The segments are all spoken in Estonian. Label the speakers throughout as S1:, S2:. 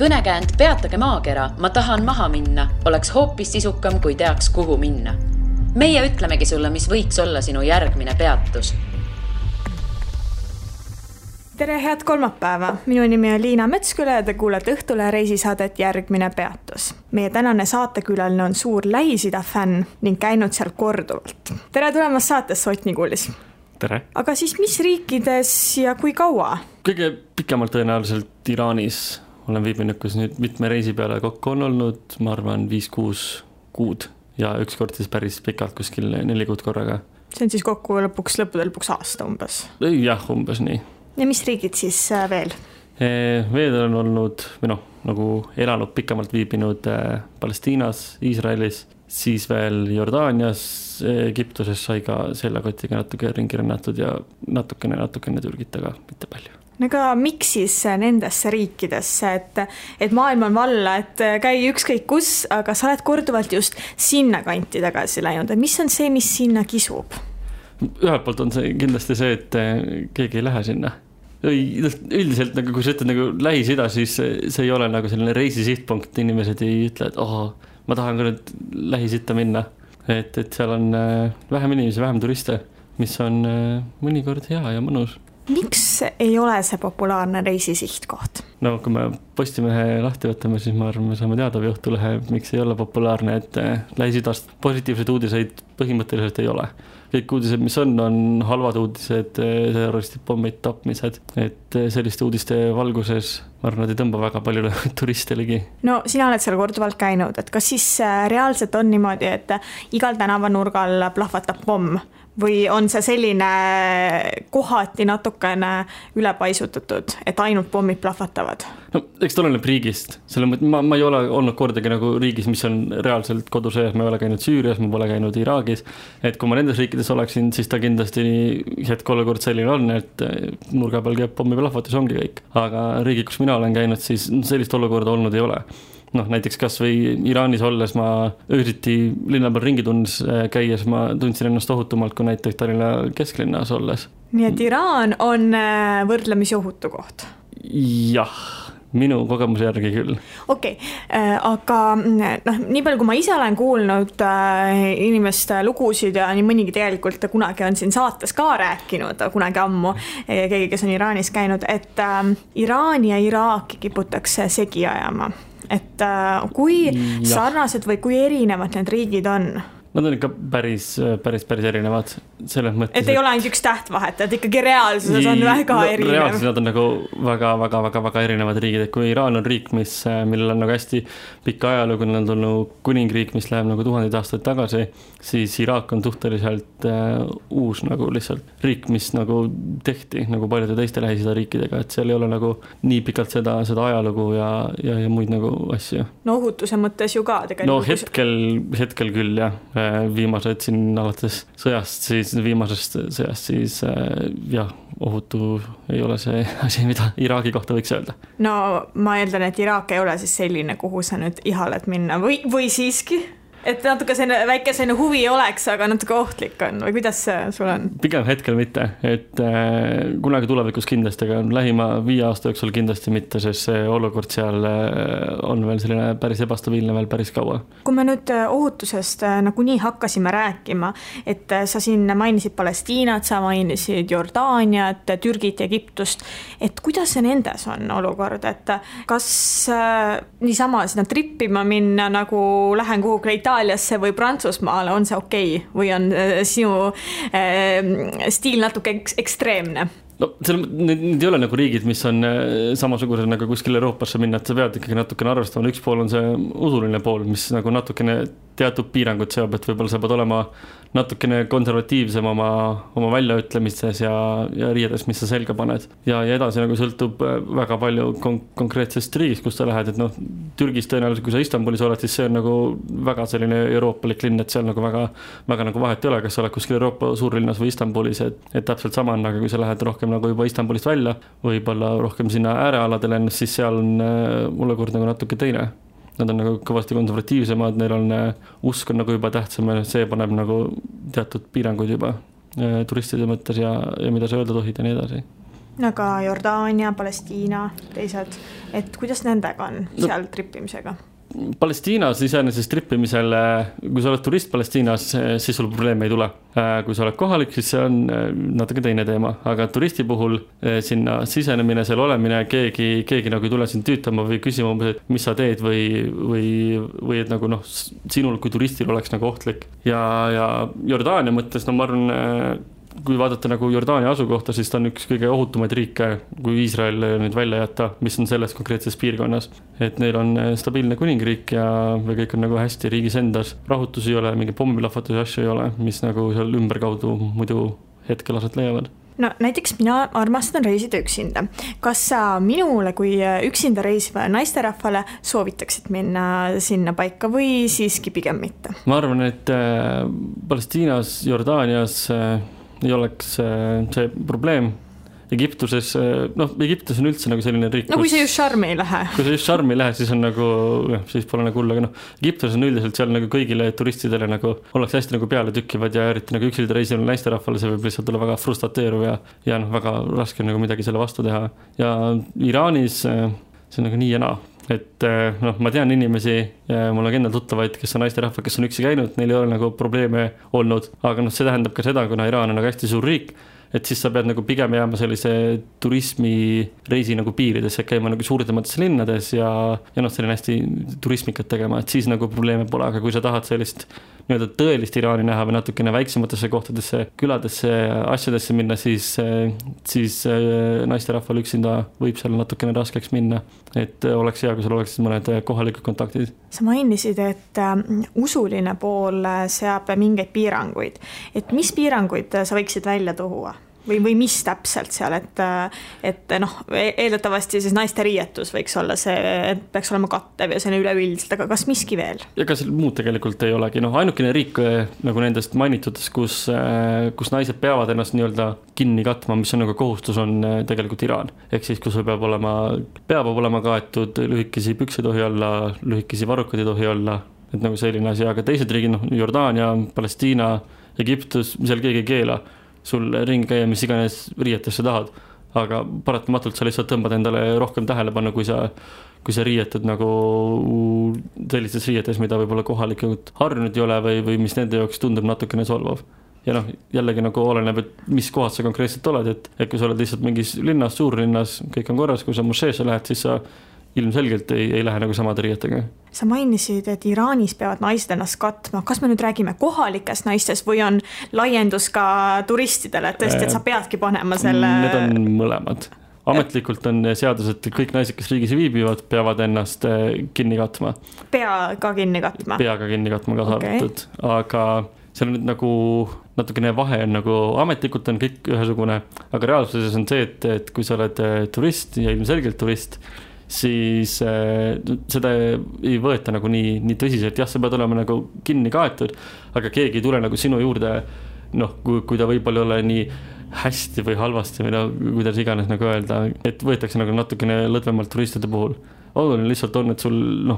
S1: Kõnekäänd Peatage maakera, ma tahan maha minna, oleks hoopis sisukam, kui teaks, kuhu minna. Meie ütlemegi sulle, mis võiks olla sinu järgmine peatus.
S2: Tere, head kolmapäeva! Minu nimi on Liina Metsküla ja te kuulete Õhtule reisisaadet Järgmine peatus. Meie tänane saatekülaline on suur Lähis-Ida fänn ning käinud seal korduvalt. Tere tulemast saatesse, Ott Nikulis!
S3: Tere!
S2: Aga siis mis riikides ja kui kaua?
S3: Kõige pikemalt tõenäoliselt Iraanis. Olen viibinud, kus nüüd mitme reisi peale kokku on olnud, ma arvan 5-6 kuud ja ükskord siis päris pikalt kuskil 4 kuud korraga.
S2: See on siis kokku lõppude lõpuks aasta umbes?
S3: Jah, umbes nii.
S2: Ja mis riigid siis veel?
S3: Veel on olnud, nagu elanud pikemalt viibinud Palestiinas, Iisraelis, siis veel Jordaanias, Egiptuses sai ka selle kotiga natuke ringi rännatud ja natukene Türgit, aga mitte palju.
S2: Aga miks siis nendesse riikidesse, et maailm on valla, et käi ükskõik kus, aga sa oled korduvalt just sinna kanti tagasi läinud. Mis on see, mis sinna kisub?
S3: Ühelt poolt on see kindlasti see, et keegi ei lähe sinna. Üldiselt, kui sa ütled Lähis-Ida, siis see ei ole nagu selline reisisihtpunkt. Inimesed ei ütle, et ma tahan ka nüüd Lähis-Ida minna. Et seal on vähem inimesi, vähem turiste, mis on mõnikord hea ja mõnus.
S2: Miks ei ole see populaarne reisisihtkoht?
S3: No kui me Postimehe lahti võtame, siis ma arvan, me saame teada või Õhtulehe, miks ei ole populaarne, et Lähis-Idast positiivseid uudiseid põhimõtteliselt ei ole. Kõik uudised, mis on halvad uudised, terroristid, pommid, tapmised, et selliste uudiste valguses ma arvan, nad ei tõmba väga palju turiste ligi. No
S2: sina oled seal korduvalt käinud, et kas siis reaalselt on niimoodi, et igal tänavanurgal plahvatab pomm? Või on see selline kohati natukene ülepaisutatud, et ainult pommid plahvatavad?
S3: No, eks ta oleneb riigist. Ma ei ole olnud kordagi nagu riigis, mis on reaalselt kodusõjas. Ma ei ole käinud Süürias, ma pole käinud Iraagis. Et kui ma nendes riikides oleksin, siis ta kindlasti hetkolekord selline on, et nurga peal käib pommi plahvatus, ongi kõik. Aga riigi, kus mina olen käinud, siis sellist olukorda olnud ei ole. Näiteks kas või Iraanis olles ma öösiti linna peal ringi käies, ma tundsin ennast ohutumalt kui näiteks Tallinna kesklinnas olles.
S2: Nii et Iraan on võrdlemisi ohutu koht?
S3: Jah, minu kogemuse järgi küll.
S2: Okei, aga nii palju kui ma ise olen kuulnud inimeste lugusid ja nii mõnigi tegelikult kunagi on siin saates ka rääkinud, kunagi ammu keegi, kes on Iraanis käinud, et Iraani ja Iraaki kiputakse segi ajama. Et kui sarnased või kui erinevad need riigid on?
S3: Nad on ikka päris erinevad selles mõttes.
S2: Et ei ole ainult üks tähtvahet, et ikkagi reaalsuses on väga erinev.
S3: Reaalsuses nad on nagu väga erinevad riigid. Et kui Iraan on riik, millel on nagu hästi pikka ajalugu, on tulnud kuningriik, mis läheb nagu 1000 aastaid tagasi, siis Iraak on suhteliselt uus nagu lihtsalt riik, mis nagu tehti nagu paljude teiste Lähis-Ida riikidega, et seal ei ole nagu nii pikalt seda ajalugu ja muid nagu asju.
S2: No ohutuse mõttes ju ka tegelikult.
S3: No hetkel küll, jah. Viimased siin alates viimasest sõjast, siis ohutu ei ole see asi, mida Iraagi kohta võiks öelda.
S2: No ma eeldan, et Iraak ei ole siis selline, kuhu sa nüüd ihaled minna või siiski? Et natuke väike huvi oleks, aga natuke ohtlik on või kuidas sul on?
S3: Pigem hetkel mitte, et kunagi tulevikus kindlasti, aga lähima 5 aasta jooksul kindlasti mitte, sest see olukord seal on veel selline päris ebastabiilne veel päris kaua.
S2: Kui me nüüd ohutusest nagu nii hakkasime rääkima, et sa siin mainisid Palestiinat, sa mainisid Jordaaniat, Türgit ja Egiptust, et kuidas see nendes on olukord, et kas niisama sinna trippima minna nagu lähen kuhugi Itaaliasse või Prantsusmaale, on see okei? Või on sinu stiil natuke ekstreemne?
S3: No, need ei ole nagu riigid, mis on samasugused nagu kuskil Euroopasse minna, et sa pead ikkagi natukene arvestama. Üks pool on see usuline pool, mis nagu natukene teatud piirangud seob, et võib-olla sa pead olema natukene konservatiivsem oma väljaütlemistes ja riiedes, mis sa selga paned. Ja edasi nagu sõltub väga palju konkreetsest riigist, kus sa lähed, et Türgis tõenäoliselt, kui sa Istanbulis oled, siis see on nagu väga selline euroopalik linn, et seal nagu väga nagu vahet ei ole, kas sa oled kuskil Euroopa suurlinnas või Istanbulis, et täpselt sama on, aga kui sa lähed rohkem nagu juba Istanbulist välja, võib-olla rohkem sinna äärealadele ennast, siis seal on olukord nagu natuke teine. Nad on nagu kõvasti konservatiivsemad, neil on usk on nagu juba tähtsam ja see paneb nagu teatud piiranguid juba turistide mõttes ja mida sa öelda tohid ja nii edasi.
S2: Aga Jordaania, Palestiina, teised, et kuidas nendega on seal trippimisega?
S3: Palestiinas iseenesest trippimisel, kui sa oled turist Palestiinas, siis sul probleeme ei tule. Kui sa oled kohalik, siis see on natuke teine teema, aga turisti puhul sinna sisenemine, seal olemine, keegi nagu ei tule sind tüütama või küsima, et mis sa teed või et nagu sinul kui turistil oleks nagu ohtlik. Ja Jordaania mõttes, ma arvan, kui vaadata nagu Jordaania asukohta, siis ta on üks kõige ohutumaid riike, kui Iisrael nüüd välja jätta, mis on selles konkreetses piirkonnas. Et neil on stabiilne kuningriik ja kõik on nagu hästi riigis endas. Rahutusi ei ole, mingi pommilahvatusi asju ei ole, mis nagu seal ümberkaudu muidu hetkel aset leiavad.
S2: No näiteks mina armastan reisida üksinda. Kas sa minule kui üksinda reisiva naisterahvale soovitaksid minna sinna paika või siiski pigem mitte?
S3: Ma arvan, et Palestiinas, Jordaanias ei oleks see probleem. Egiptuses, Egiptus on üldse nagu selline riik.
S2: No kui see just šarmi ei lähe.
S3: Kui see just šarmi ei lähe, siis on nagu, siis pole nagu hull, aga Egiptus on üldiselt seal nagu kõigile turistidele nagu ollakse hästi nagu peale tükkivad ja eriti nagu üksilda reisil naisterahvale, see võib lihtsalt olla väga frustrateeruv ja väga raske nagu midagi selle vastu teha. Ja Iraanis see on nagu nii ja naa. Et ma tean inimesi, mul on endal tuttavaid, kes on naisterahvad, kes on üksi käinud, neil ei ole nagu probleeme olnud, aga see tähendab ka seda, kuna Iraan on nagu hästi suur riik, et siis sa pead nagu pigem jääma sellise turismireisi nagu piiridesse, käima nagu suurtematesse linnades ja selline hästi turismikat tegema, et siis nagu probleeme pole, aga kui sa tahad sellist tõelist Iraani näha või natukene väiksematesse kohtadesse, küladesse, asjadesse minna, siis naisterahval üksinda võib seal natukene raskeks minna, et oleks hea, kui sul oleks mõned kohalikud kontaktid.
S2: Sa mainisid, et usuline pool seab mingeid piiranguid, et mis piiranguid sa võiksid välja tuua? Või mis täpselt seal, et eeldatavasti siis naiste riietus võiks olla see, et peaks olema kattev ja see on üleüldiselt, aga kas miski veel? Ega
S3: seal muud tegelikult ei olegi, ainukene riik nagu nendest mainitutes, kus naised peavad ennast nii-öelda kinni katma, mis on nagu kohustus, on tegelikult Iraan. Ehk siis, kus peab olema kaetud, lühikesi pükse tohi olla, lühikesi varrukad ei tohi olla, et nagu selline asi, aga teised riigid, Jordaania, Palestiina, Egiptus, seal keegi ei keela sul ringi käia, mis iganes riietesse tahad, aga paratamatult sa lihtsalt tõmbad endale rohkem tähelepanu, kui sa riietud nagu sellistes riietes, mida võib-olla kohalikud harjunud ei ole või mis nende jaoks tundub natukene solvav. Ja jällegi nagu oleneb, et mis kohad sa konkreetselt oled, et kui sa oled lihtsalt mingis linnas, suurlinnas, kõik on korras, kui sa mošeesse lähed, siis sa ilmselgelt ei lähe nagu samade riietega.
S2: Sa mainisid, et Iraanis peavad naised ennast katma. Kas me nüüd räägime kohalikest naistest või on laiendus ka turistidele, et tõesti, et sa peadki panema selle?
S3: Need on mõlemad. Ametlikult on seadus, et kõik naised, kes riigis viibivad, peavad ennast kinni katma.
S2: Pea ka kinni katma?
S3: Pea ka kinni katma kaasa arvatud. Aga seal on nüüd nagu natukene vahe on nagu ametlikult on kõik ühesugune, aga reaalsuses on see, et kui sa oled turist ja ilmselgelt turist, siis seda ei võeta nagu nii tõsiselt. Jah, sa pead olema nagu kinni kaetud, aga keegi ei tule nagu sinu juurde, kui ta võib-olla ole nii hästi või halvasti või kuidas iganes nagu öelda, et võetakse nagu natukene lõdvemalt turistide puhul. Oluline lihtsalt on, et sul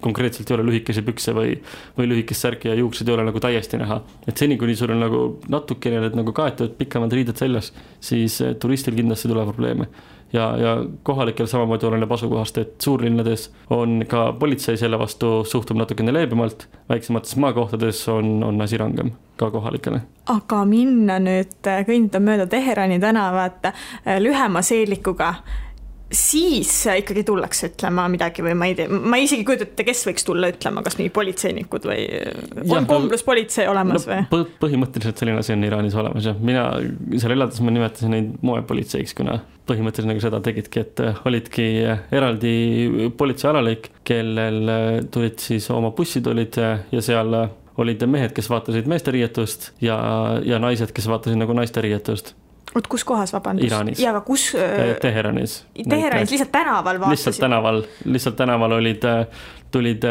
S3: konkreetselt ei ole lühikesi pükse või lühikest särki ja juuksed ei ole nagu täiesti näha. Et seni, kuni sul on nagu natukene nagu kaetud pikemad riided seljas, siis turistil kindlasti tuleb probleeme. Ja kohalikel samamoodi oleneb asukohast, et suurlinnades on ka politsei selle vastu suhtub natukene leebemalt, väiksemates maakohtades on asi rangem ka kohalikele. Aga
S2: minna nüüd kõndida mööda Teherani tänavat lühema seelikuga, siis ikkagi tullakse ütlema midagi või ma ei tea, ma isegi kujutate, kes võiks tulla ütlema, kas mingi politseinikud või on komplus politsei olemas või?
S3: Põhimõtteliselt selline asi on Iraanis olemas ja mina seal elades ma nimetasin neid moepolitseiks, kuna põhimõtteliselt nagu seda tegidki, et olidki eraldi politseialalik, kellel tulid siis oma bussid olid ja seal olid mehed, kes vaatasid meeste riietust ja naised, kes vaatasid nagu naiste riietust.
S2: Kus kohas, vabandust?
S3: Iraanis.
S2: Ja, aga kus?
S3: Teheranis.
S2: Teheranis, lihtsalt tänaval vaatasid?
S3: Lihtsalt tänaval tulid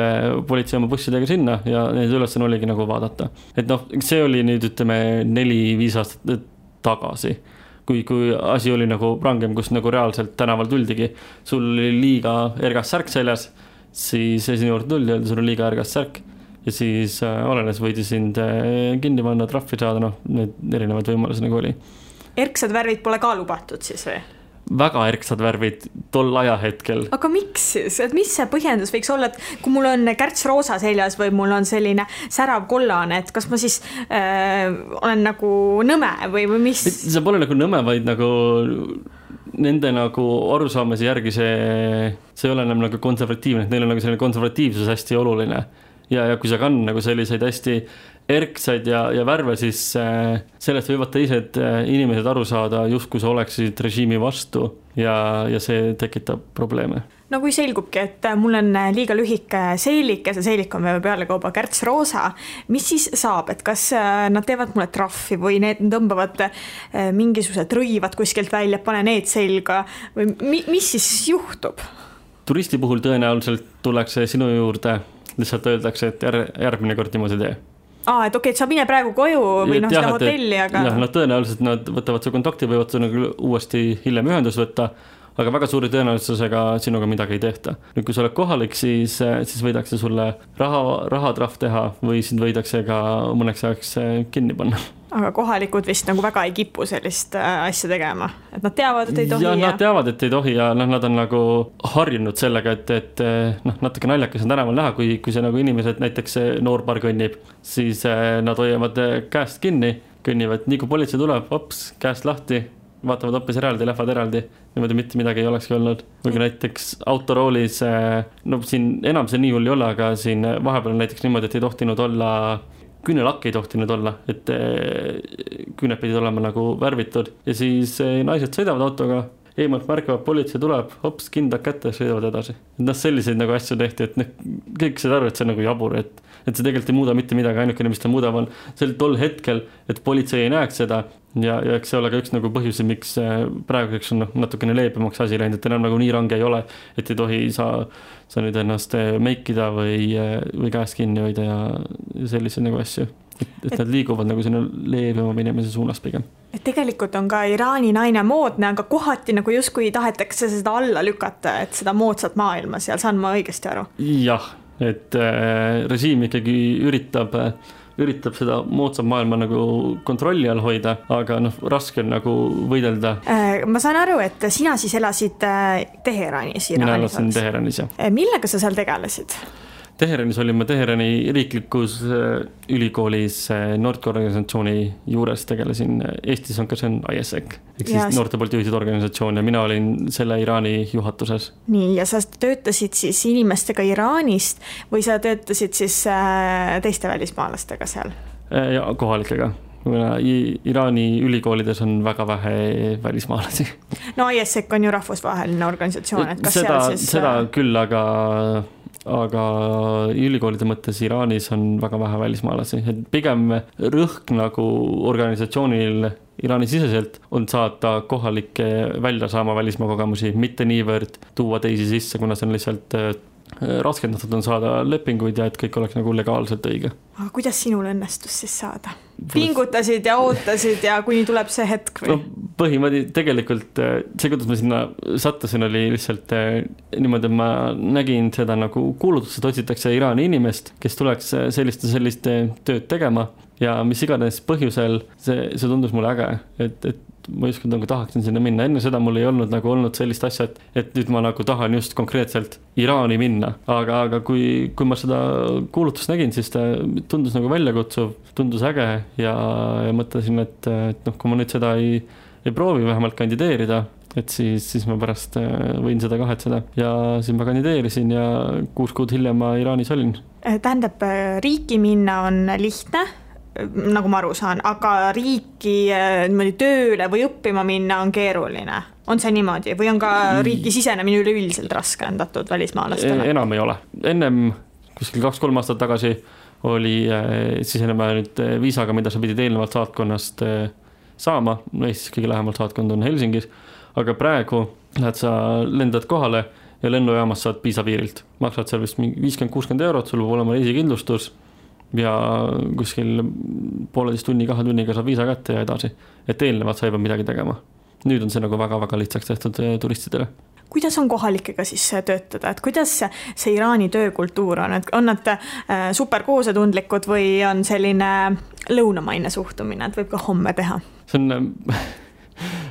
S3: politsei oma bussidega sinna ja neid ülesanne oligi nagu vaadata. Et see oli nüüd ütleme 4-5 aastat tagasi, kui asi oli nagu rangem, kus nagu reaalselt tänaval tuldigi. Sul oli liiga ergas särk seljas, siis sinu juurde tuldi, öeldi, sul on liiga ergas särk ja siis olenes võidi sind kinni panna, trahvi saada, need erinevad võimalused nagu oli.
S2: Erksad värvid pole ka lubatud siis või?
S3: väga erksad värvid tol ajahetkel.
S2: Aga miks siis? Et mis see põhjendus võiks olla, et kui mul on kärts roosa seljas või mul on selline särav kollane, et kas ma siis olen nagu nõme või mis?
S3: See pole nagu nõme, vaid nagu nende nagu arusaamise järgi see ei ole enam nagu konservatiivne, et neil on nagu selline konservatiivsus hästi oluline. Ja kui see kann nagu selliseid hästi erksaid ja värve, siis sellest võivad teised inimesed aru saada, justkui sa oleksid režiimi vastu ja see tekitab probleeme.
S2: No kui selgubki, et mul on liiga lühike seelik ja see seelik on pealekauba kärts roosa, mis siis saab, et kas nad teevad mulle trahvi või need tõmbavad mingisugused rõivad kuskilt välja, pane need selga või mis siis juhtub?
S3: Turisti puhul tõenäoliselt tullakse sinu juurde, lihtsalt öeldakse, et järgmine kord niimoodi tee.
S2: Et okei, et sa mine praegu koju või seda hotelli, aga...
S3: Jah, tõenäoliselt nad võtavad su kontakti, võivad nagu uuesti hiljem ühendus võtta, aga väga suuri tõenäosusega sinuga midagi ei tehta. Nüüd, kui sa oled kohalik, siis võidakse sulle rahatrahv teha või sind võidakse ka mõneks ajaks kinni panna.
S2: Aga kohalikud vist nagu väga ei kipu sellist asja tegema, et nad teavad, et ei tohi.
S3: Ja nad teavad, et ei tohi ja nad on nagu harjunud sellega, et natuke naljakas on tänaval näha, kui see nagu inimesed, näiteks noorpar kõnnib, siis nad hoiavad käest kinni, kõnnivad, nii kui politsei tuleb, hops, käest lahti, vaatavad hoopis eraldi, lähevad eraldi, niimoodi mitte midagi ei olekski olnud. Või kui näiteks autoroolis, siin enam see nii hull ei ole, aga siin vahepeal näiteks niimoodi, et ei tohtinud olla küünelakk ei tohtinud olla, et küüned pidid olema nagu värvitud ja siis naised sõidavad autoga, eemalt märkavad, politsei tuleb, hops, kindad kätte, sõidavad edasi. Selliseid nagu asju tehti, et kõik seda arvad, see on nagu jabur, et see tegelikult ei muuda mitte midagi, ainukene, mis ta muudab on sel tol hetkel, et politsei ei näeks seda ja eks see ole ka üks nagu põhjusi, miks praeguseks on natukene leebemaks asi läinud, et enam nagu nii range ei ole, et ei tohi sa nüüd ennast meikida või käest kinni hoida ja selliseid nagu asju. Et nad liiguvad nagu sinna leebema minemise suunas pigem.
S2: Et tegelikult on ka Iraani naine moodne, aga kohati nagu justkui tahetakse seda alla lükata, et seda moodsat maailma seal, saan ma õigesti aru?
S3: Jah, et režiim ikkagi üritab seda moodsat maailma nagu kontrolli all hoida, aga raske on nagu võidelda.
S2: Ma saan aru, et sina siis elasid Teheranis.
S3: Mina elasin Teheranis, jah.
S2: Millega sa seal tegelesid?
S3: Teheranis olin ma Teherani riiklikus ülikoolis noorteorganisatsiooni juures tegelesin. Eestis on ka see ISEC, ehk siis noorte poolt juhitud organisatsioon ja mina olin selle Iraani juhatuses. Nii,
S2: ja sa töötasid siis inimestega Iraanist või sa töötasid siis teiste välismaalastega seal?
S3: Ja kohalikega. Iraani ülikoolides on väga vähe välismaalasi.
S2: No ISEC on ju rahvusvaheline organisatsioon, et kas
S3: seda,
S2: seal siis...
S3: Seda küll, aga ülikoolide mõttes Iraanis on väga vähe välismaalasi. Et pigem rõhk nagu organisatsioonil Iraani siseselt on saata kohalikke välja saama välismaa kogemusi, mitte niivõrd tuua teisi sisse, kuna see on lihtsalt raskendatud on saada lepinguid ja et kõik oleks nagu legaalselt õige.
S2: Aga kuidas sinul õnnestus siis saada? Pingutasid ja ootasid ja kuni tuleb see hetk või?
S3: Põhimõtteliselt tegelikult see, kuidas ma sinna sattusin, oli lihtsalt niimoodi, et ma nägin seda nagu kuulutust, et otsitakse Iraani inimest, kes tuleks sellist tööd tegema ja mis iganes põhjusel see tundus mulle äge, et ma just nagu tahaksin sinna minna. Enne seda mul ei olnud nagu olnud sellist asja, et nüüd ma nagu tahan just konkreetselt Iraani minna. Aga kui ma seda kuulutust nägin, siis ta tundus nagu väljakutsuv, tundus äge ja mõtlesin, et kui ma nüüd seda ei proovi vähemalt kandideerida, et siis ma pärast võin seda kahetseda. Ja siis ma kandideerisin ja 6 kuud hiljem ma Iraanis olin.
S2: Tähendab, riiki minna on lihtne, nagu ma aru saan, aga riiki tööle või õppima minna on keeruline. On see niimoodi? Või on ka riiki sisenemine üleüldiselt raskendatud välismaalastele?
S3: Enam ei ole. Ennem kuskil 2-3 aastat tagasi oli sisenema nüüd viisaga, mida sa pidid eelnevalt saatkonnast saama. Eestis kõige lähemalt saatkond on Helsingis, aga praegu lendad kohale ja lennujaamas saad viisapiirilt. Maksad seal vist 50-60 €, sul võib olema reisikindlustus ja kuskil 1,5 tunni, 2 tunniga saab viisa kätte ja edasi. Et eelnevalt sa ei pea midagi tegema. Nüüd on see nagu väga-väga lihtsaks tehtud turistidele.
S2: Kuidas on kohalikega siis töötada? Et kuidas see Iraani töökultuur on? On nad superkoosetundlikud või on selline lõunamaine suhtumine, et võib ka homme teha?
S3: See on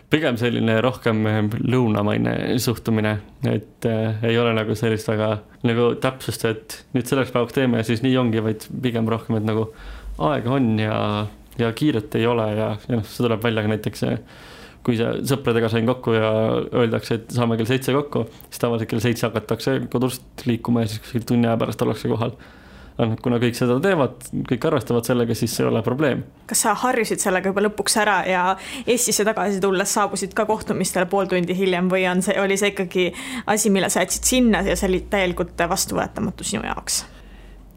S3: pigem selline rohkem lõunamaine suhtumine, et ei ole nagu sellist väga nagu täpsust, et nüüd selleks päevaks teeme ja siis nii ongi, vaid pigem rohkem, et nagu aega on ja kiiret ei ole ja see tuleb välja ka näiteks, kui sõpradega sain kokku ja öeldakse, et saame kell 7 kokku, siis tavaliselt kell 7 hakatakse kodust liikuma ja siis tunni aja pärast ollakse kohal. Kuna kõik seda teevad, kõik arvestavad sellega, siis see ei ole probleem.
S2: Kas sa harjusid sellega juba lõpuks ära ja Eestisse tagasi tulles saabusid ka kohtumistele pool tundi hiljem või oli see ikkagi asi, mille sa jätsid sinna ja see oli täielikult vastuvõetamatu sinu jaoks?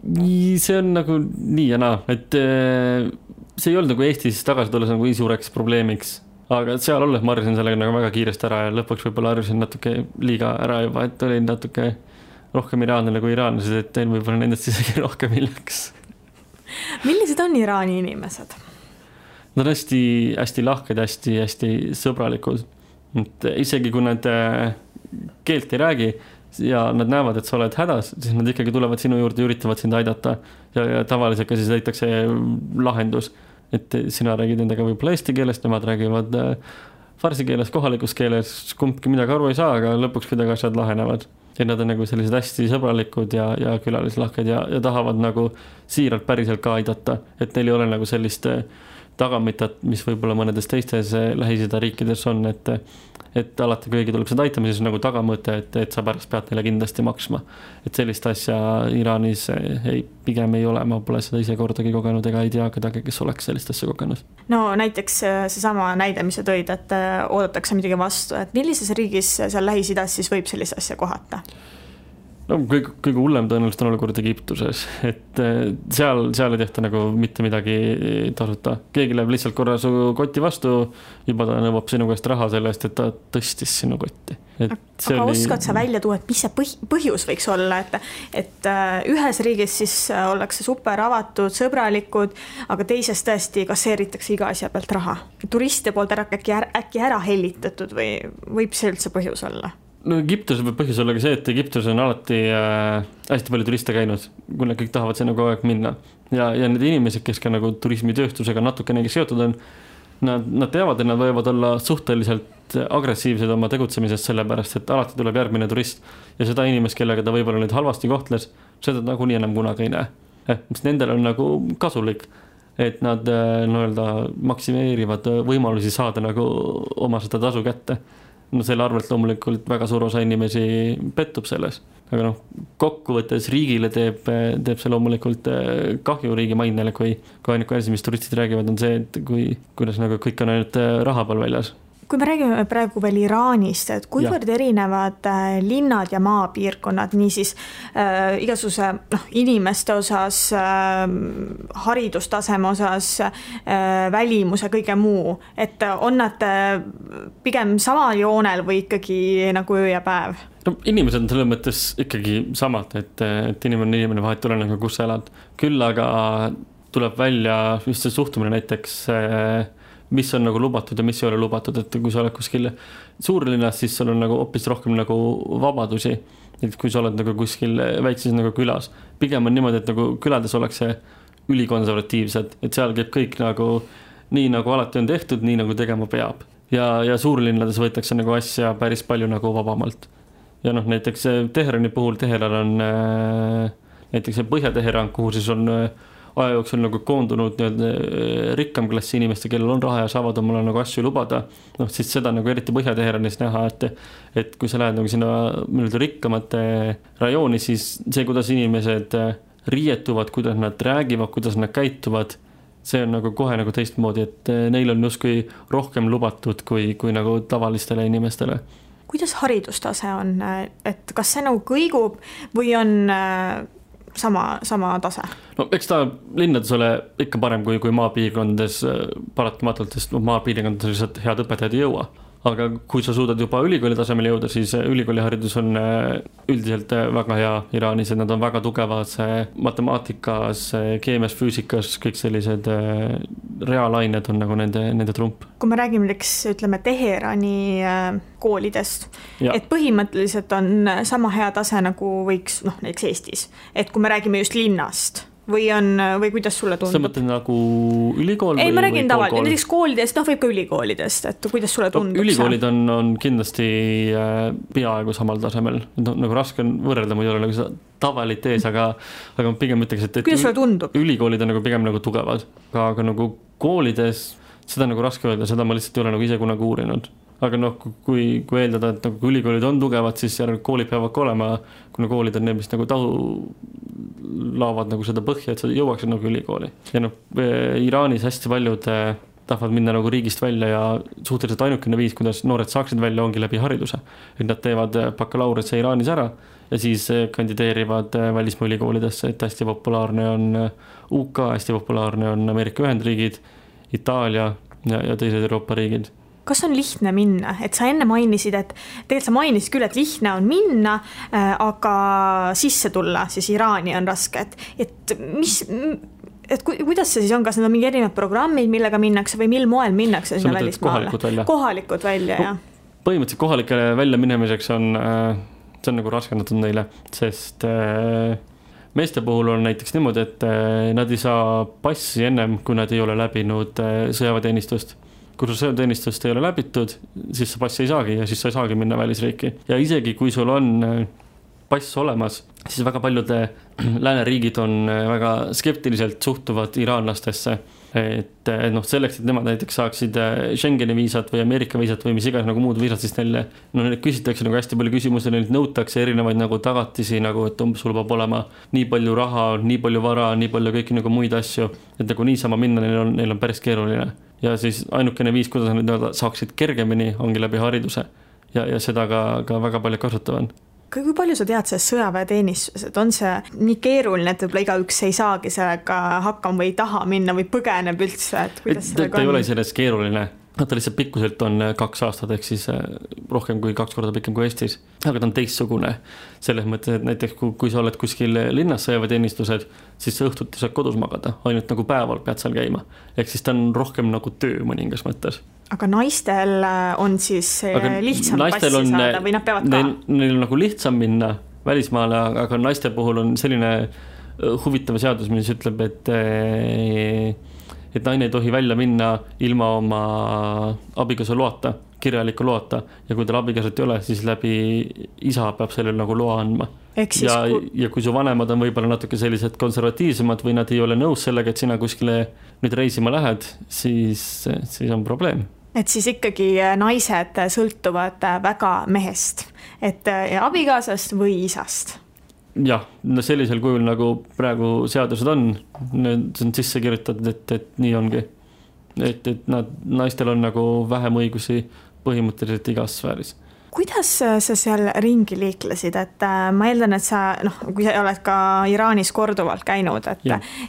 S3: See on nagu nii ja naa, et see ei olnud nagu Eestis tagasi tulles nagu suureks probleemiks. Aga seal olles ma harjusin sellega nagu väga kiiresti ära ja lõpuks võib-olla harjusin natuke liiga ära juba, et olin natuke rohkem iraanlane kui iraanlased, et tein võib-olla nendest isegi rohkem hiljaks.
S2: Millised on Iraani inimesed?
S3: Nad on hästi lahked, hästi sõbralikud. Et isegi kui nad keelt ei räägi ja nad näevad, et sa oled hädas, siis nad ikkagi tulevad sinu juurde ja üritavad sind aidata ja tavaliselt ka siis leitakse lahendus. Et sina räägid endaga võib-olla eesti keelest, nemad räägivad farsi keeles, kohalikus keeles, kumbki midagi aru ei saa, aga lõpuks kuidagi asjad lahenevad. Ja nad on nagu sellised hästi sõbralikud ja külalislahked ja tahavad nagu siiralt päriselt ka aidata, et neil ei ole nagu sellist tagamitat, mis võib-olla mõnedes teistes Lähis-Ida riikides on, et alati kõigi tuleb seda aitama, siis nagu tagamõte, et sa pärast pead neile kindlasti maksma. Et sellist asja Iraanis pigem ei ole, ma pole seda ise kordagi kogenud ega ei tea kedagi, kes oleks sellist asja kogenud.
S2: No näiteks seesama näide, mis sa tõid, et oodatakse midagi vastu, et millises riigis seal Lähis-Idas siis võib sellist asja kohata?
S3: No, kõige hullem tõenäoliselt on olukord Egiptuses, et seal ei tehta nagu mitte midagi tasuta. Keegi läheb lihtsalt korra su kotti vastu, juba ta nõuab sinu käest raha selle eest, et ta tõstis sinu kotti.
S2: Aga oskad sa välja tuua, et mis see põhjus võiks olla, et ühes riigis siis ollakse super avatud, sõbralikud, aga teises tõesti kasseeritakse iga asja pealt raha. Turiste poolt äkki ära hellitatud või võib see üldse põhjus olla?
S3: No Egiptuses võib põhjus olla ka see, et Egiptuses on alati hästi palju turiste käinud, kuna kõik tahavad sinna kogu aeg minna. Ja need inimesed, kes ka nagu turismitööstusega natukenegi seotud on, nad teavad, et nad võivad olla suhteliselt agressiivsed oma tegutsemisest sellepärast, et alati tuleb järgmine turist ja seda inimest, kellega ta võib-olla nüüd halvasti kohtles, seda nagu nii enam kunagi ei näe. Mis nendel on nagu kasulik, et nad maksimeerivad võimalusi saada nagu oma seda tasu kätte. No selle arvelt loomulikult väga suur osa inimesi pettub selles, aga kokkuvõttes riigile teeb see loomulikult kahju riigi mainele, kui ainuke asi, mis turistid räägivad, on see, et kuidas nagu kõik on ainult raha peal väljas.
S2: Kui me räägime praegu veel Iraanist, et kuivõrd erinevad linnad ja maapiirkonnad, niisiis igasuguse inimeste osas, haridustaseme osas, välimuse, kõige muu, et on nad pigem samal joonel või ikkagi nagu öö ja päev?
S3: No, inimesed on selle mõttes ikkagi samad, et inimene vahet tuleneb, kus sa elad. Küll aga tuleb välja just see suhtumine näiteks mis on nagu lubatud ja mis ei ole lubatud, et kui sa oled kuskil suurlinnas, siis sul on nagu hoopis rohkem nagu vabadusi, et kui sa oled nagu kuskil väikses nagu külas. Pigem on niimoodi, et nagu külades ollakse ülikonservatiivsed, et seal käib kõik nagu nii nagu alati on tehtud, nii nagu tegema peab. Ja suurlinnades võetakse nagu asja päris palju nagu vabamalt. Ja näiteks Teherani puhul Teheran on näiteks Põhja-Teheran, kuhu siis on aja jooksul nagu koondunud rikkam klassi inimeste, kellel on raha ja saavad omale nagu asju lubada. Siis seda nagu eriti Põhja-Teheranis näha, et kui sa lähed nagu sinna rikkamate rajooni, siis see, kuidas inimesed riietuvad, kuidas nad räägivad, kuidas nad käituvad, see on nagu kohe nagu teistmoodi, et neil on justkui rohkem lubatud kui nagu tavalistele inimestele.
S2: Kuidas haridustase on, et kas see nagu kõigub või on sama tase?
S3: No eks ta linnades ole ikka parem kui maapiirkondades paratamatult, sest maapiirkondades lihtsalt head õpetajad ei jõua. Aga kui sa suudad juba ülikooli tasemel jõuda, siis ülikooliharidus on üldiselt väga hea Iraanis, et nad on väga tugevad matemaatikas, keemias, füüsikas, kõik sellised reaalained on nagu nende trump.
S2: Kui me räägime ütleme Teherani koolidest, et põhimõtteliselt on sama hea tase nagu võiks näiteks Eestis, et kui me räägime just linnast või kuidas sulle tundub?
S3: Sa mõtled nagu ülikool?
S2: Ei, ma räägin tavaliselt, näiteks koolidest, võib ka ülikoolidest, et kuidas sulle tundub?
S3: Ülikoolid on kindlasti peaaegu samal tasemel, nagu raske on võrrelda, ma ei ole nagu seda tavalit ees, aga pigem ütleks, et
S2: kuidas sulle tundub?
S3: Ülikoolid on nagu pigem nagu tugevad, aga nagu koolides seda nagu raske öelda, seda ma lihtsalt ei ole nagu ise kunagi uurinud. Aga kui eeldada, et nagu ülikoolid on tugevad, siis koolid peavad ka olema, kuna koolid on need, mis nagu laavad nagu seda põhja, et sa jõuaksid nagu ülikooli. Ja Iraanis hästi paljud tahavad minna nagu riigist välja ja suhteliselt ainukene viis, kuidas noored saaksid välja, ongi läbi hariduse. Et nad teevad bakalaureuse Iraanis ära ja siis kandideerivad välismaa ülikoolidesse, et hästi populaarne on UK, hästi populaarne on Ameerika Ühendriigid, Itaalia ja teised Euroopa riigid.
S2: Kas on lihtne minna? Et sa enne mainisid, et tegelikult sa mainisid küll, et lihtne on minna, aga sisse tulla siis Iraani on raske. Et kuidas see siis on? Kas need on mingi erinevad programmid, millega minnakse või mil moel minnakse sinna välismaale? Kohalikud välja, jah.
S3: Põhimõtteliselt kohalikele välja minemiseks on nagu raskendatud neile, sest meeste puhul on näiteks niimoodi, et nad ei saa passi ennem, kui nad ei ole läbinud sõjaväeteenistust. Kui sul sõjaväeteenistust ei ole läbitud, siis sa passi ei saagi ja siis sa ei saagi minna välisriiki. Ja isegi kui sul on pass olemas, siis väga paljud lääneriigid on väga skeptiliselt suhtuvad iraanlastesse. Et selleks, et nemad näiteks saaksid Schengeni viisat või Ameerika viisat või mis iganes nagu muud viisat, siis neile küsitakse nagu hästi palju küsimusi, neilt nõutakse erinevaid nagu tagatisi, nagu et sul peab olema nii palju raha, nii palju vara, nii palju kõiki nagu muid asju, et nagu niisama minna neil on päris keeruline. Ja siis ainukene viis, kuidas nad saaksid kergemini, ongi läbi hariduse ja seda ka väga palju kasutavad.
S2: Kui palju sa tead sellest sõjaväeteenistus, et on see nii keeruline, et võib-olla igaüks ei saagi sellega hakkama või taha minna või põgeneb üldse, et kuidas sellega on?
S3: Ta ei ole sellest keeruline, ta lihtsalt pikkuselt on 2 aastat, ehk siis rohkem kui 2 korda pikem kui Eestis, aga ta on teistsugune. Selles mõttes, et näiteks kui sa oled kuskil linnas sõjaväeteenistused, siis sa õhtuti saad kodus magada, ainult nagu päeval pead seal käima. Ehk siis ta on rohkem nagu töö mõningas mõttes.
S2: Aga naistel on siis lihtsam passi saada või nad peavad ka?
S3: Neil on nagu lihtsam minna välismaale, aga naiste puhul on selline huvitav seadus, mis ütleb, et naine ei tohi välja minna ilma oma abikaasa loata, kirjaliku loata. Ja kui tal abikaasat ei ole, siis läbi isa peab sellele nagu loa andma. Ja kui su vanemad on võib-olla natuke sellised konservatiivsemad või nad ei ole nõus sellega, et sina kuskile nüüd reisima lähed, siis on probleem.
S2: Et siis ikkagi naised sõltuvad väga mehest, et abikaasast või isast.
S3: Jah, sellisel kujul nagu praegu seadused on, need on sisse kirjutatud, et nii ongi. Et naistel on nagu vähem õigusi põhimõtteliselt igas sfääris.
S2: Kuidas sa seal ringi liiklesid, et ma eeldan, et sa, kui sa oled ka Iraanis korduvalt käinud,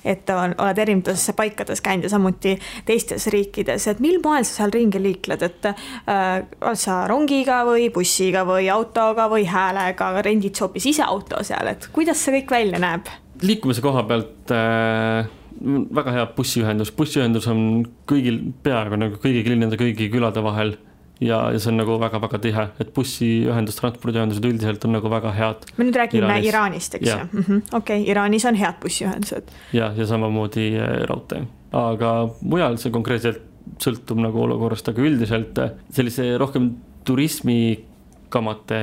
S2: et oled erinevates paikades käinud ja samuti teistes riikides, et mil moel sa seal ringi liikled, et oled sa rongiga või bussiga või autoga või häälega, rendid hoopis ise auto seal, et kuidas see kõik välja näeb?
S3: Liikumise koha pealt väga hea bussiühendus on peaaegu nagu kõigi linnade, kõigi külade vahel. Ja see on nagu väga-väga tihe, et bussiühendus, transpordiühendused üldiselt on nagu väga head.
S2: Me nüüd räägime Iraanist, eks ju? Okei, Iraanis on head bussiühendused.
S3: Ja samamoodi raudtee. Aga mujal see konkreetselt sõltub nagu olukorrast, aga üldiselt sellise rohkem turismikamate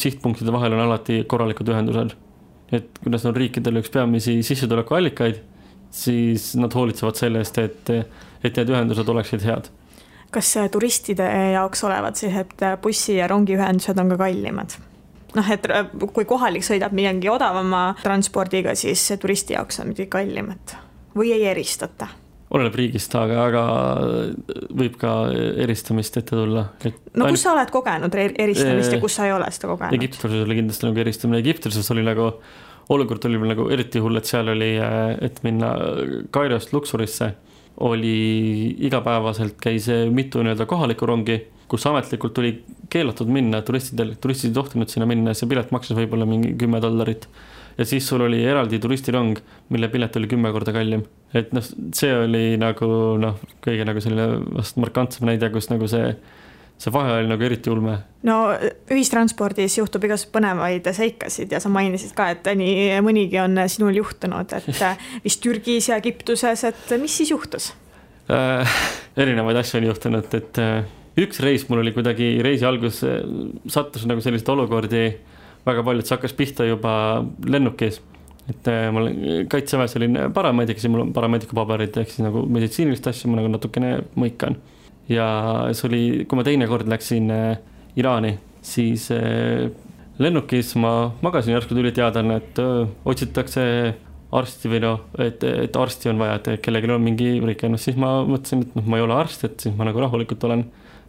S3: sihtpunktide vahel on alati korralikud ühendused. Et kuidas on riikidel üks peamisi sissetulekuallikaid, siis nad hoolitsevad sellest, et need ühendused oleksid head.
S2: Kas turistide jaoks olevad sellised bussi- ja rongiühendused on ka kallimad? Et kui kohalik sõidab midagi odavama transpordiga, siis turisti jaoks on midagi kallimat või ei eristata?
S3: Oleneb riigist, aga võib ka eristamist ette tulla.
S2: Kus sa oled kogenud eristamist ja kus sa ei ole seda kogenud?
S3: Egiptuses oli kindlasti nagu eristamine. Egiptuses oli nagu, olukord oli nagu eriti hull, et seal oli, et minna Kairost Luxorisse, oli igapäevaselt käis mitu kohalikku rongi, kus ametlikult tuli keelatud minna, turistid ei tohtinud sinna minna, see pilet maksis võib-olla mingi $10. Ja siis sul oli eraldi turistirong, mille pilet oli 10 korda kallim. Et see oli nagu kõige nagu selline vast markantsem näide, kus nagu see vahe oli nagu eriti ulme.
S2: No ühistranspordis juhtub igas põnevaid seikasid ja sa mainisid ka, et nii mõnigi on sinul juhtunud, et vist Türgis ja Egiptuses, et mis siis juhtus?
S3: Erinevaid asju on juhtunud, et üks reis mul oli kuidagi reisi algus sattus nagu sellised olukordi väga palju, et see hakkas pihta juba lennukis, et mul kaitseväes olin paramedic, siis mul on paramedicu paberid ehk siis nagu meditsiinilist asju ma nagu natukene mõikan ja see oli, kui ma teine kord läksin Iraani, siis lennukis ma magasin, järsku tuli teadlane, et otsitakse arsti või et arsti on vaja, et kellelgi on mingi rike, siis ma mõtlesin, et ma ei ole arst, et siis ma nagu rahulikult olen,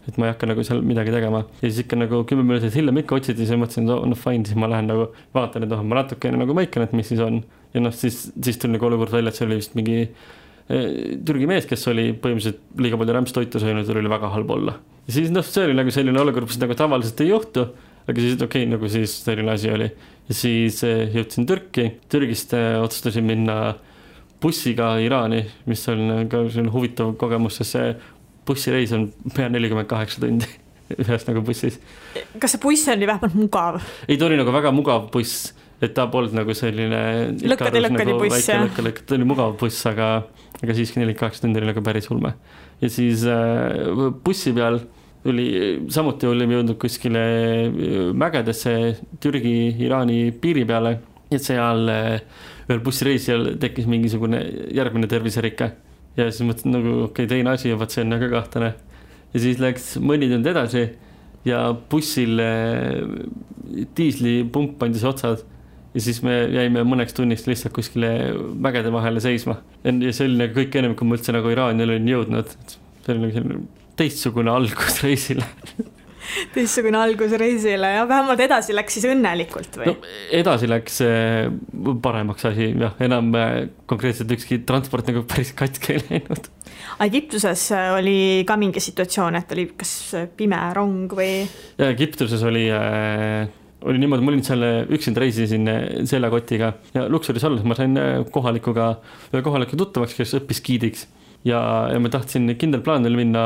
S3: et ma ei hakka nagu seal midagi tegema. Ja siis ikka nagu 10 minutit hiljem ikka otsiti, siis mõtlesin, et fine, siis ma lähen nagu vaatan, et ma natuke nagu mõikan, et mis siis on. Ja siis tuli nagu olukord välja, et see oli vist mingi Türgi mees, kes oli põhimõtteliselt liiga palju rämpstoitu söönud, oli väga halb olla. Ja siis see oli nagu selline olukord, mis nagu tavaliselt ei juhtu, aga siis okei, nagu siis selline asi oli. Ja siis jõudsin Türki, Türgist otsustasin minna bussiga Iraani, mis on ka huvitav kogemus, sest see bussireis on pea 48 tundi ühes nagu bussis.
S2: Kas see buss oli vähemalt mugav?
S3: Ei, ta oli nagu väga mugav buss, et ta polnud nagu selline
S2: lõkkadi buss, jah.
S3: Ta oli mugav buss, aga siiski 48 tundi oli nagu päris ulme. Ja siis bussi peal samuti olime jõudnud kuskile mägedesse Türgi-Iraani piiri peale, et seal ühel bussireisijal tekkis mingisugune järgmine terviserike. Ja siis mõtlesin nagu okei, teine asi, vaat see on väga kahtlane. Ja siis läks mõni tund edasi ja bussil diislipump pandis otsad ja siis me jäime mõneks tunnist lihtsalt kuskile mägede vahele seisma. Ja see oli nagu kõik ennem, kui ma üldse nagu Iraani olin jõudnud. See oli nagu teistsugune algus reisile.
S2: Teistsugune algus reisile ja vähemalt edasi läks siis õnnelikult või?
S3: No, edasi läks paremaks asi, jah, enam konkreetselt ükski transport nagu päris katki ei läinud.
S2: Egiptuses oli ka mingi situatsioon, et oli kas pime rong või?
S3: Ja Egiptuses oli niimoodi, ma olin seal üksinda reisisin seljakotiga ja Luxoris olles ma sain kohaliku tuttavaks, kes õppis giidiks. Ja ma tahtsin kindel plaan minna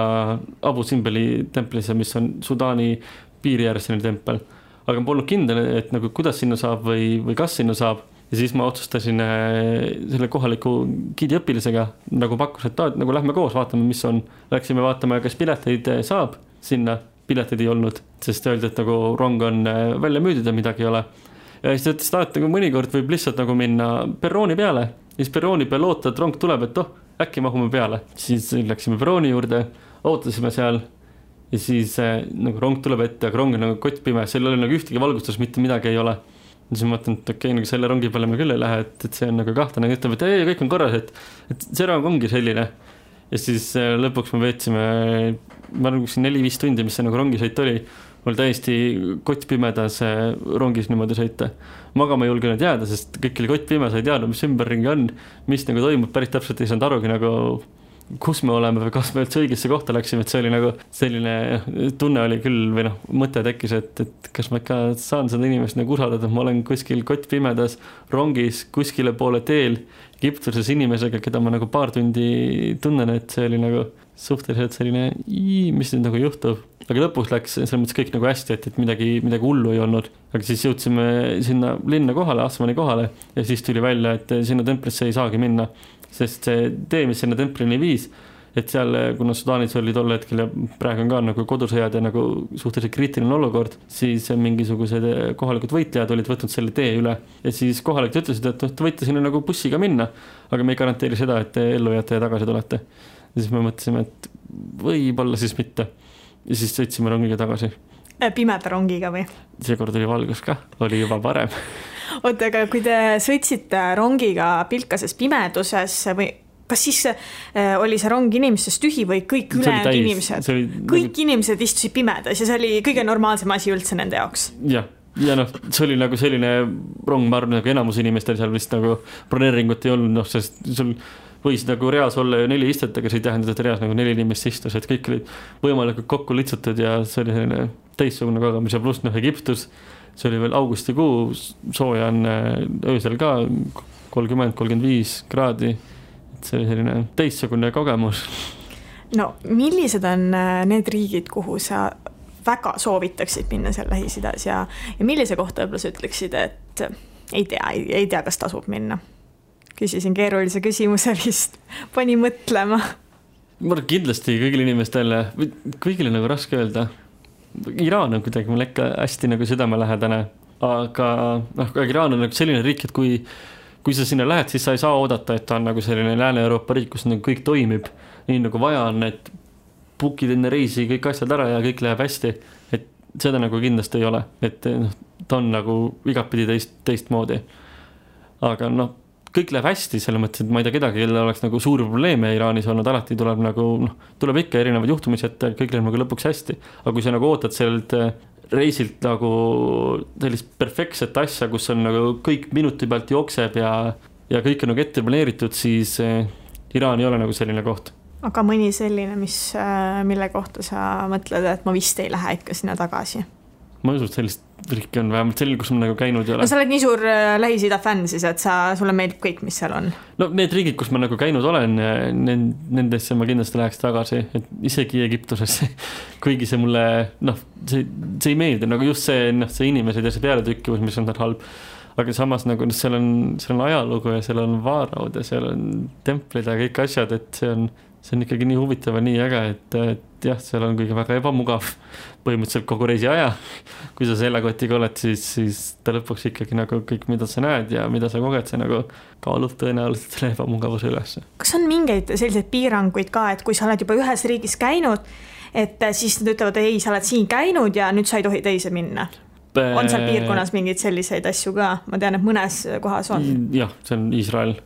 S3: Abu Simbeli templisse, mis on Sudaani piiri ääres selline tempel. Aga ma polnud kindel, et nagu kuidas sinna saab või kas sinna saab. Ja siis ma otsustasin selle kohaliku giidiõpilisega nagu pakkus, et nagu lähme koos, vaatame, mis on. Läksime vaatama, kas pileteid saab sinna. Pileteid ei olnud, sest öeldi, et nagu rong on välja müüdud ja midagi ei ole. Ja siis ütles, et nagu mõnikord võib lihtsalt nagu minna perrooni peale. Ja siis perrooni peal oota, et rong tuleb, et äkki mahume peale. Siis läksime perrooni juurde, ootasime seal ja siis nagu rong tuleb ette, aga rong on nagu kottpime, seal oli nagu ühtegi valgustus, mitte midagi ei ole. Ja siis ma mõtlen, et okei, nagu selle rongi peale me küll ei lähe, et see on nagu kahtlane. Ütleb, et ei, kõik on korras, et see rong ongi selline. Ja siis lõpuks me veetsime, ma arvan, 4-5 tundi, mis see nagu rongisõit oli. Mul täiesti kottpimedas rongis niimoodi sõita. Magama ei julgenud jääda, sest kõik oli kottpime, sa ei teadnud, mis ümberringi on, mis nagu toimub, päris täpselt ei saanud arugi nagu kus me oleme või kas me üldse õigesse kohta läksime, et see oli nagu selline tunne oli küll või mõte tekkis, et kas ma ikka saan seda inimest nagu usaldada, et ma olen kuskil kottpimedas rongis kuskile poole teel Egiptuses inimesega, keda ma nagu paar tundi tunnen, et see oli nagu suhteliselt selline, mis nüüd nagu juhtub. Aga lõpus läks selles mõttes kõik nagu hästi, et midagi hullu ei olnud. Aga siis jõudsime sinna linna kohale, Asmani kohale ja siis tuli välja, et sinna templisse ei saagi minna. Sest see tee, mis sinna templini viis, et seal, kuna Sudaanis oli tol hetkel ja praegu on ka nagu kodusõjad ja nagu suhteliselt kriitiline olukord, siis mingisugused kohalikud võitlejad olid võtnud selle tee üle. Ja siis kohalikud ütlesid, et te võite sinna nagu bussiga minna, aga me ei garanteeri seda, et te ellu jääte ja tagasi tulete. Ja siis me mõtlesime, et võib-olla siis mitte. Ja siis sõitsime rongiga tagasi.
S2: Pimeda rongiga või?
S3: Seekord oli valgus ka, oli juba parem.
S2: Oota, aga kui te sõitsite rongiga pilkases pimeduses või kas siis oli see rong inimestest tühi või kõik ülejäänud inimesed? Kõik inimesed istusid pimedas ja see oli kõige normaalsem asi üldse nende jaoks?
S3: Ja see oli nagu selline rong, ma arvan, nagu enamus inimestel seal vist nagu broneeringut ei olnud, sest sul võis nagu reas olla ju 4 istet, aga see ei tähendada, et reas nagu 4 inimest istus, et kõik olid võimalikult kokku litsutud ja see oli selline teistsugune kogemus ja pluss Egiptus, see oli veel augustikuu, sooja on öösel ka 30-35 kraadi, et see oli selline teistsugune kogemus.
S2: No millised on need riigid, kuhu sa väga soovitaksid minna seal Lähis-Idas ja millise kohta võib-olla sa ütleksid, et ei tea, kas tasub minna? Küsisin keerulise küsimuse vist, pani mõtlema.
S3: Ma kindlasti kõigile inimestele, kõigile nagu raske öelda. Iraan on kuidagi mul ikka hästi nagu südamelähedane, aga Iraan on nagu selline riik, et kui sa sinna lähed, siis sa ei saa oodata, et ta on nagu selline Lääne-Euroopa riik, kus nagu kõik toimib nii nagu vaja on, et bookid enne reisi kõik asjad ära ja kõik läheb hästi, et seda nagu kindlasti ei ole, et ta on nagu igapidi teistmoodi. Aga kõik läheb hästi, selle mõttes, et ma ei tea kedagi, kellel oleks nagu suuri probleeme Iraanis olnud, alati tuleb nagu, tuleb ikka erinevad juhtumised, et kõik läheb nagu lõpuks hästi. Aga kui sa nagu ootad sellelt reisilt nagu sellist perfektset asja, kus on nagu kõik minuti pealt jookseb ja kõik on nagu ette planeeritud, siis Iraan ei ole nagu selline koht.
S2: Aga mõni selline, mille kohta sa mõtled, et ma vist ei lähe ikka sinna tagasi?
S3: Ma usun, et sellist riiki on vähemalt selline, kus ma nagu käinud ei ole.
S2: No sa oled nii suur Lähis-Ida fänn siis, et sulle meeldib kõik, mis seal on?
S3: No need riigid, kus ma nagu käinud olen, nendesse ma kindlasti läheks tagasi, et isegi Egiptusesse, kuigi see mulle, see ei meeldi, nagu just see inimesed ja see pealetükkivus, mis on halb. Aga samas nagu seal on ajalugu ja seal on vaaraud ja seal on templid ja kõik asjad, et see on ikkagi nii huvitav ja nii äge, et jah, seal on kõige väga ebamugav põhimõtteliselt kogu reisi aja. Kui sa sellekotiga oled, siis ta lõpuks ikkagi nagu kõik, mida sa näed ja mida sa koged, see nagu kaalub tõenäoliselt selle ebamugavuse üles.
S2: Kas on mingeid selliseid piiranguid ka, et kui sa oled juba ühes riigis käinud, et siis nad ütlevad, ei, sa oled siin käinud ja nüüd sa ei tohi teise minna? On seal piirkonnas mingeid selliseid asju ka? Ma tean, et mõnes kohas on.
S3: Jah, see on Iisrael.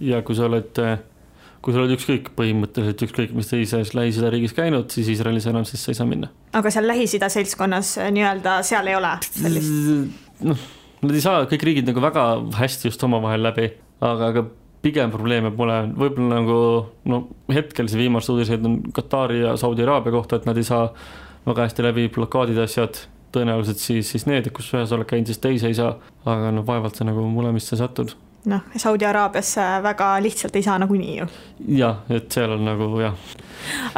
S3: Ja kui sa oled ükskõik põhimõtteliselt ükskõik, mis teises Lähis-Ida riigis käinud, siis Iisraelis enam siis sa ei saa minna. Aga
S2: seal Lähis-Ida seltskonnas nii-öelda seal ei ole sellist?
S3: Nad ei saa kõik riigid nagu väga hästi just omavahel läbi, aga pigem probleeme pole. Võib-olla nagu hetkel see viimast uudised on Katari ja Saudi Araabia kohta, et nad ei saa väga hästi läbi blokaadid asjad. Tõenäoliselt siis need, kus ühes oled käinud, siis teise ei saa, aga vaevalt sa nagu mulemisse satud.
S2: Saudi Araabiasse väga lihtsalt ei saa nagunii ju.
S3: Jah, et seal on nagu, jah.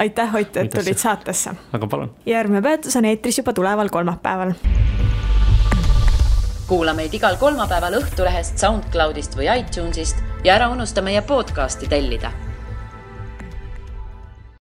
S2: Aitäh, Ott, et tulid saatesse.
S3: Aga palun.
S2: Järgmine peatus on eetris juba tuleval kolmapäeval.
S1: Kuula meid igal kolmapäeval Õhtulehest, SoundCloudist või iTunesist ja ära unusta meie podcasti tellida.